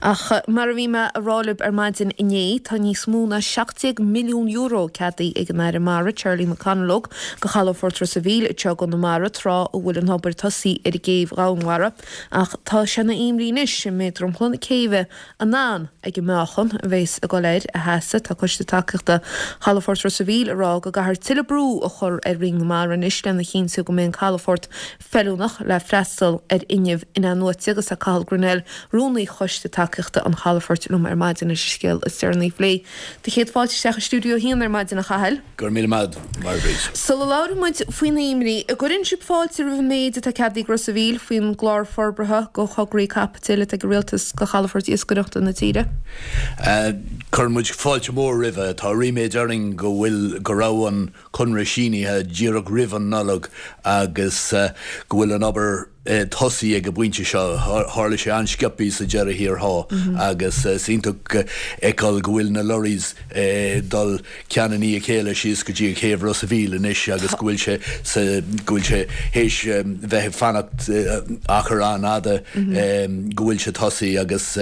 Ach mar a bhí mé a rá libh ar maidin inné, tá níos mó ná €17 milliún ceadaithe ag an Aire Mara, Charlie McConalogue, do chalafort Ros a' Mhíl anseo i gConamara, tráth a bhfuil an obair tosaithe ar an gcéibh dhomhainmhara. Ach tá sé ina imní anois an mbeidh dromchla na céibhe in ann ag an meáchan a bheas ag dul air a sheasamh. Tá Coiste Tacaíochta Chalafort Ros a' Mhíl ag rá go gcaithfear tuilleadh brú a chur ar Roinn na Mara anois lena chinntiú go mbeidh an calafort feiliúnach le freastal ar fhuinneamh in-athnuaite agus tá Cathal Grennell, Rúnaí Choiste Tacaíochta an Chalafoirt liom ar maidin leis an scéal is deireanaí a phlé. Do chéad fáilte isteach i Stiúideo 1 ar maidin, a Chathail. Go raibh míle maith agat, a Mháire Bríd. Sula labhraíonn muid faoin imní, an gcuireann sibh fáilte roimh an méid atá ceadaithe ag Ros a' Mhíl faoin gclár forbartha go thograí caipitil atá ag an Rialtas go chalafoirt iascaireachta na tíre? Cuireann muid fáilte mhór roimhe. Tá ríméad orainn go bhfuil, go raibh an conradh sínithe díreach roimh an Nollaig agus go bhfuil an obair tosaithe ag an bpointe seo. Tharla sé an-sciobthaí sa deireadh thiar thall agus is iontach fheiceáil go bhfuil na lorries ag dul ceann i ndiaidh a chéile síos go dtí an chéibh Ros a' Mhíl anois agus go bhfuil sé sa, go bhfuil sé théis bheith ag fanacht achar an-fhada go bhfuil sé tosaithe agus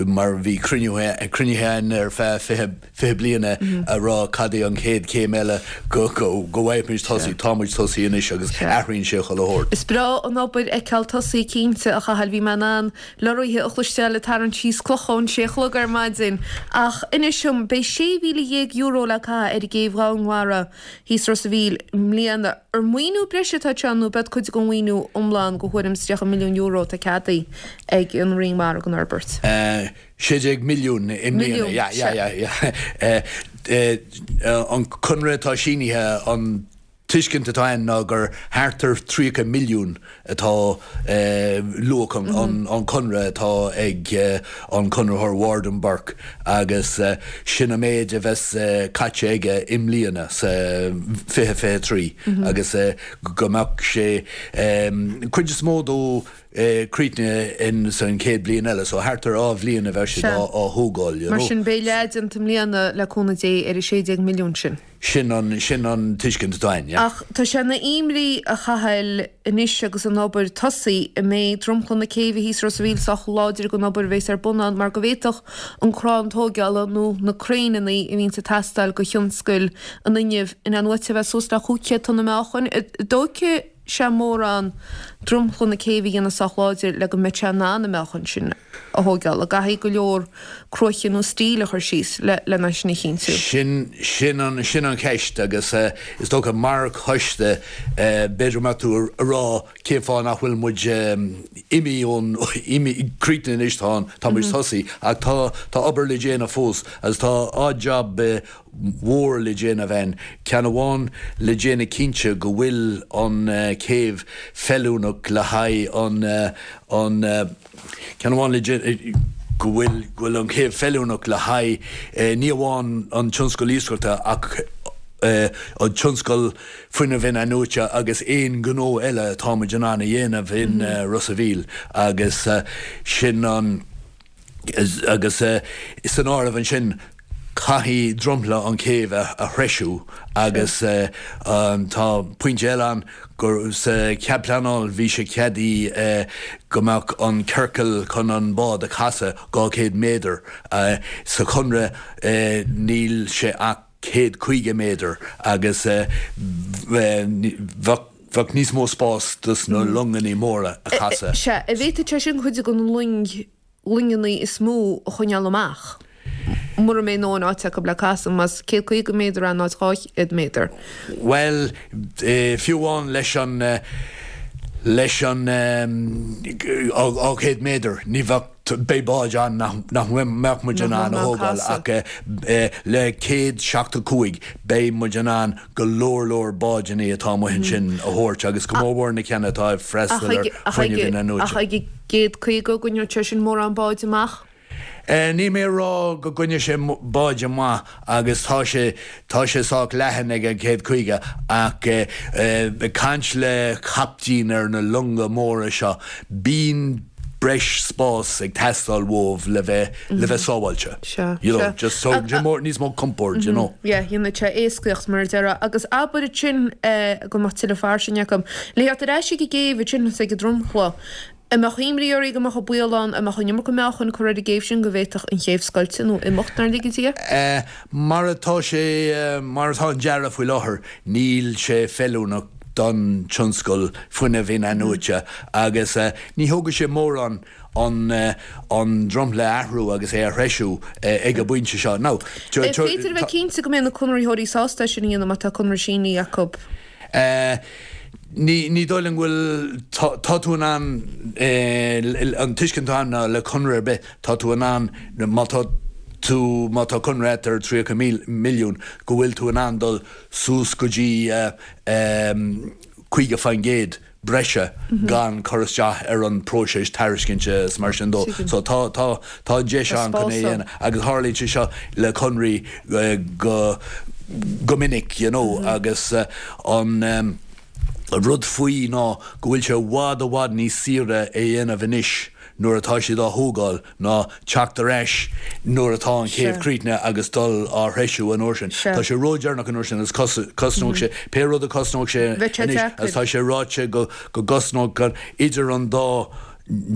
mar bhí cruinnithe againn ar feadh 20 20 bliain a rá cad é an chéad chéim eile go bhfaighimid tosaí. Tá muid tosaí anois agus athraíonn sé chuile shórt. Is breá an obair a fheiceáil tosaí cinnte, a Chathail. Bhí mé in ann lorraithe a chloisteáil ag tarraingt síos clocha ón sé a chlog ar maidin. Ach inis dom, beidh €16,000 le caitheamh ar an gcéibh dhomhainmhara thíos Ros a' Mhíl i mbliana. Ar maoiniú breise atá anseo nó b'ead cuid den mhaoiniú iomlán de thuairim is €30 milliún atá ceadaithe ag an Roinn Mara don fhorbairt? 16 milliún i mbliana. Yeah, yeah, yeah, yeah. An conradh atá sínithe, an tuiscint atá ann ná gur thart ar 30 milliún atá luach an chonradh atá ag an conraitheoir Ward and Burke agus sin an méid a bheas caite aige i mbliana sa 2023 agus go mbeadh sé cuid is mó dó críochnaithe in san chéad bhliain eile, so thart ar 2 bhliain a bheidh siad á thógáil, you know. Mar sin, beidh leath déanta i mbliana, le cúnamh Dé, ar an 16 milliún sin. Sin an, sin an tuiscint atá againn, yeah. Ach tá sé ina imní, a Chathail, anois agus an obair tosaithe, an mbeidh dromchla na céibhe thíos Ros a' Mhíl sách láidir don obair a bheas ar bun ann mar go bhféadfadh an crann tóigeála nó na craenanna a bhíonns ag teastáil do thionscal an fhuinnimh in-athnuaite a bheith suas le 500 tonna meáchain. An dtógfaidh sé mórán dromchla na céibhe a dhéanamh sách láidir le go mbeadh sé in ann an meáchan sin a thóigeáil. An gcaithfidh go leor cruaiche nó stíl a chur síos lena sin a chinntiú? Sin, sin an, sin an cheist agus is dócha mar choiste b'fhéidir go mbeadh tú a rá cén fáth nach bhfuil muid imithe ón, imithe, críochnaithe anois tá an, tá muid tosaithe ach tá, tá obair le déanamh fós agus tá odd job mhór le déanamh ann, ceann amháin le déanamh cinnte go bhfuil an chéibh feiliúnach le haghaidh an, an, ceann amháin le déanamh go bhfuil, go bhfuil an chéibh feiliúnach le haghaidh ní amháin an tionscal iascaireachta ach an tionscal fuinnimh in-athnuaite agus aon ghnó eile atá muid in ann a dhéanamh in Ros a' Mhíl agus sin an. Agus san áireamh ansin, caithfidh dromchla an chéibh a threisiú agus tá pointe eile ann gur sa chead pleanáil bhí sé ceadaithe go mbeadh an ciorcal chun an bád a chasadh 200 méadar. Sa chonradh níl sé ach 150 méadar agus bheadh bheadh níos mó spás dos na longannaí móra a chasadh. Sea, an bhféadfadh sé sin cuid de na loing, loingeannaí is mó a choinneáil amach, mura mbeidh a ndóthain áite acu le casadh, más 150 méadar in áit 200 méadar. Bhuel, fiú amháin leis an, leis an 200 méadar, ní bheadh. Beidh báid ann nach mbeadh muid in ann a thógáil ach le 175 beidh muid in ann go leor leor báideanna atá amuigh ansin a thabhairt agus go mór mhór na ceanna atá ag freastal ar fuinneamh in-athnuaite. Ach ag an gcéad 50 an gcoinneodh sé sin mórán báid amach? Níl mé ag rá go gcoinneodh sé báid amach agus tá sé, tá sé sách leathan ag an 150 ach ag caint le captaein ar na longa móra seo, bíonn breis spás ag teastáil uaibh le bheith, le bheith sábháilte. Sea, You know, sea. just so, more, níos mó compoird, you know. Yeah, dhéanfadh sé éascaíocht mar a déarfá. Agus abair ansin go mbeadh tuilleadh fairsinge acu. Le theacht ar ais ag an gcéibh ansin is ag an dromchla. An mbeadh imní oraibh go mbeadh an baol ann, an mbeadh an iomarca meáchain curtha ar an gcéibh sin go bhféadfadh an chéibh scoilteadh nó imeacht nár lige Dia? Mar atá sé, mar atá an dearadh faoi láthair, níl sé feiliúnach don tionscal fuinnimh in-athnuaite agus ní thógfaidh sé mórán an an dromchla a athrú agus é a threisiú ag an bpointe seo. Now, An féidir a bheith cinnte go mbeidh na conraitheoirí sásta é sin a dhéanamh má tá conradh sínithe acu? Ní, ní dóigh liom go bhfuil, tá, tá tú in ann, an tuiscint atá ann ná le conradh ar bith, tá tú in ann, má tá tú, má tá conradh agat ar 30 milliún, go bhfuil tú in ann dul suas go dtí 50% breise gan cur isteach ar an próiseas tairiscinte is mar sin dó. So tá, tá, tá an deis ann chun é a dhéanamh agus tharlaíonn sé seo le conraí go, go minic you know agus an rud faoi ná go bhfuil sé i bhfad, i bhfad níos saoire é a dhéanamh anois nuair atá siad á thógáil ná teacht ar ais nuair atá an chéibh críochnaithe agus dul á threisiú an uair sin. Tá sé ródheireanach an uair sin agus cosnóidh sé pé rud a cosnóidh sé anois agus tá sé ráite go gcosnódh idir an dá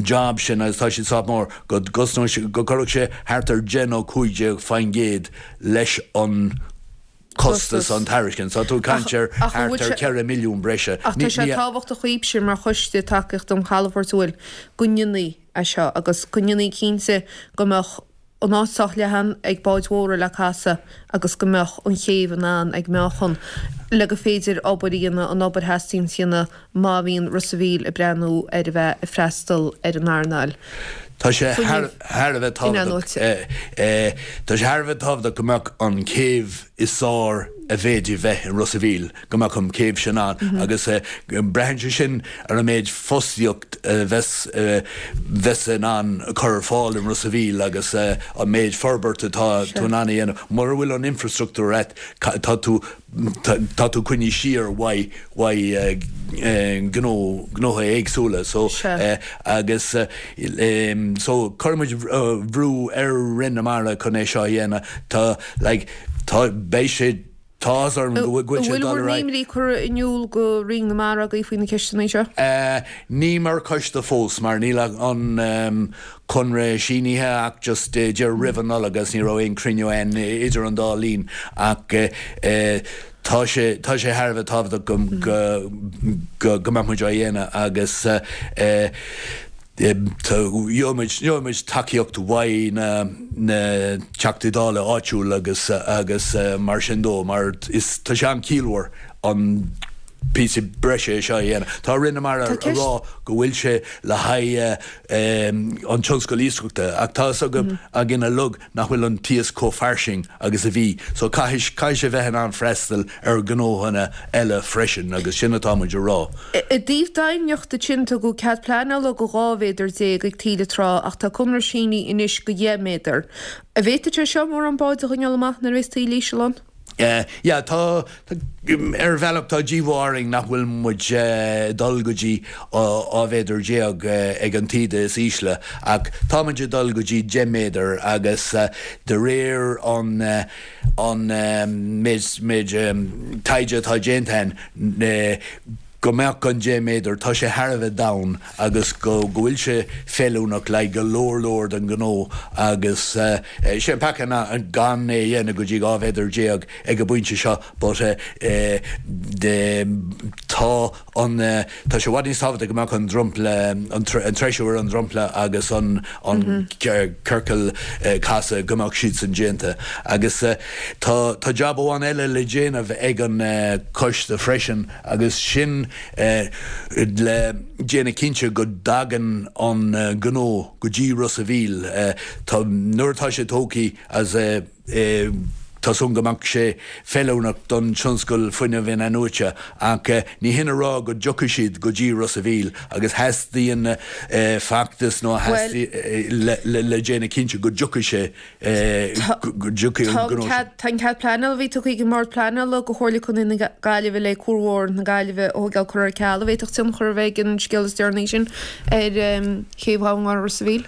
job sin agus tá siad sách mór, go gcosnódh sé, go gcuirfeadh sé thart ar 10 nó 15% leis an costas an tairiscint. Tá tú ag caint ar thart ar 4 milliún breise. Ach tá sé tábhachtach dhaoibhse mar choiste tacaíochta an chalafoirt an bhfuil go ndéanfaí é seo agus go ndéanfaí cinnte go mbeadh an áit sách leathan ag báid mhóra le casadh agus go mbeadh an chéibh in ann ag meáchan le gur féidir obair a dhéanamh, an obair a theastaíonn a dhéanamh má bhíonn Ros a' Mhíl ag breathnú ar a bheith ag freastal ar an earnáil Tá sé thar a bheith tábhachtach, tá sé thar a bheith tábhachtach go mbeadh an chéibh is fearr a bhféadfaí bheith i Ros a' Mhíl, go mbeadh an chéibh sin ann agus braitheann sé sin ar an méid fostaíocht a bheas, bheas in ann cur ar fáil i Ros a' Mhíl agus an méid forbairt atá tú in ann a dhéanamh. Mura bhfuil an infreastruchtúr agat, tá tú tá tú coinnithe siar uaidh uaidh gnó gnóthaí éagsúla so agus so cuirfidh muid brú ar Roinn na Mara chun é seo a dhéanamh tá like tá beidh sé tá áthas orm go bhfuil sé ag dul ar aghaidh. An bhfuil bhur n-imní curtha in iúl go Roinn na Mara agaibh faoi na ceisteanna seo? Ní mar choiste fós mar níl an conradh sínithe ach just díreach roimh an Nollaig agus ní raibh aon cruinniú ann idir an dá linn ach tá sé tá sé thar a bheith tábhachtach go go go mbeadh muid á dhéanamh agus gheobhaidh muid gheobhaidh muid tacaíocht uaidh na na Teachtaí Dála áitiúil agus agus mar sin dó mar is tá sé an-chiallmhar an píosa breise seo a dhéanamh. Tá Roinn na Mara ag rá go bhfuil sé le haghaidh an tionscal iascaireachta ach tá a fhios againn uilig nach bhfuil an t-iasc chomh fairsing agus a bhí so caithfidh caithfidh sé bheith in ann freastal ar ghnóthanna eile freisin agus sin atá muid a rá. I dtaobh doimhneachta ansin tugadh cead pleanála go 12 mhéadar ag taoille trá ach tá conradh sínithe anois go 10 méadar. An bhféadfaidh sé seo mórán báid a choinneáil amach nuair a bheas taoille íseal ann? Yeah, tá, ar bhealach tá díomá orainn nach bhfuil muid ag dul go dtí 12 mhéadar ag an taoide is ísle ach tá muid ag dul go dtí 10 méadar agus de réir an an méid méid taighde atá déanta againn go mbeadh an 10 méadar, tá sé thar a bheith domhain agus go bhfuil sé feiliúnach le go leor leor den ghnó agus sé an peaca ná gan é a dhéanamh go dtí 12 mhéadar ag an bpointe seo but tá an tá sé i bhfad níos tábhachtaí go mbeadh an dromchla an treisiú ar an dromchla agus an an ciorcal casadh go mbeadh siadsan déanta agus tá tá jab amháin eile le déanamh ag an coiste freisin agus sin le déanamh cinnte go dtagann an gnó go dtí Ros a' Mhíl. Tá, nuair atá sé tógtha as tá súil go mbeadh sé feiliúnach don tionscal fuinnimh in-athnuaite ach ní hin a rá go dtiocfaidh siad go dtí Ros a' Mhíl agus theastaíonn feachtas nó le déanamh cinnte go dtiocfaidh sé go dtiocfaidh an gnó sin. Tá an cead pleanála a bhí tugtha ag an mBord Pleanála do Chomhairle Contae na Gaillimhe le Cuar Mhór na Gaillimhe a thógáil curtha ar ceal. An bhféadfadh tionchar a bheith ag an scéal is deireanaí sin ar chéibh Dhomhanbhá Ros a' Mhíl?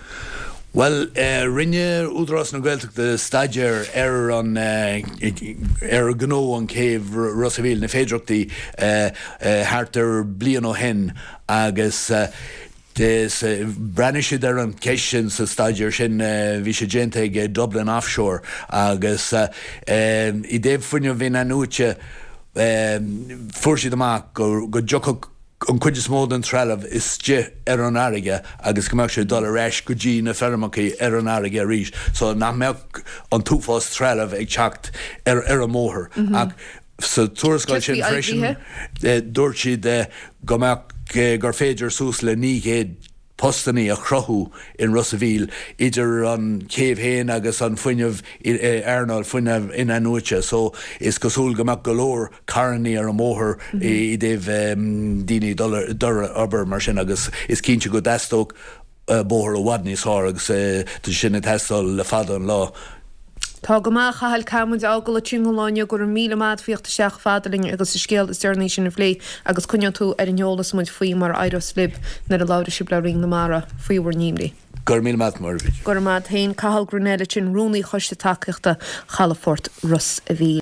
Bhuel, rinne Údarás na Gaeltachta staidéar ar an ar ghnó an chéibh Ros a' Mhíl, na féidearthachtaí, thart ar bliain ó shin agus. Bhreathnaigh siad ar an cheist sin sa staidéar sin, bhí sé déanta ag Dublin Offshore agus i dtaobh fuinneamh in-athnuaite fuair siad amach go dtiocfadh an chuid is mó den trealamh istigh ar an fharraige agus go mbeadh sé ag dul ar ais go dtí na feirmeacha ar an fharraige arís so nach mbeadh an t-uafás trealamh ag teacht ar an mbóthar. Ach sa tuarascáil sin freisin dúirt siad go mbeadh, gur féidir suas le 900 postannaí a chruthú in Ros a' Mhíl idir an chéibh féin agus an fuinneamh, earnáil fuinneamh in-athnuaite so is cosúil go mbeadh go leor carrannaí ar an mbóthar i dtaobh daoine ag dul ar obair mar sin agus is cinnte go dteastódh bóthar i bhfad níos fearr agus tá sin ag teastáil le fada an lá. Tá go maith, a Chathail, caithfidh muid a fhágáil ansin don lá inniu. Go raibh míle maith agat faoi theacht isteach chomh fada linn agus an scéal is deireanaí sin a phlé agus coinneoidh tú ar an eolas muid faoi mar a éireos libh nuair a labhróidh sibh le Roinn na Mara faoi bhur n-imní. Go raibh míle maith agat, Muireadh. Go raibh maith agat féin. Cathal Grennell ansin, Rúnaí Choiste Tacaíochta Chalafort Ros a' Mhíl.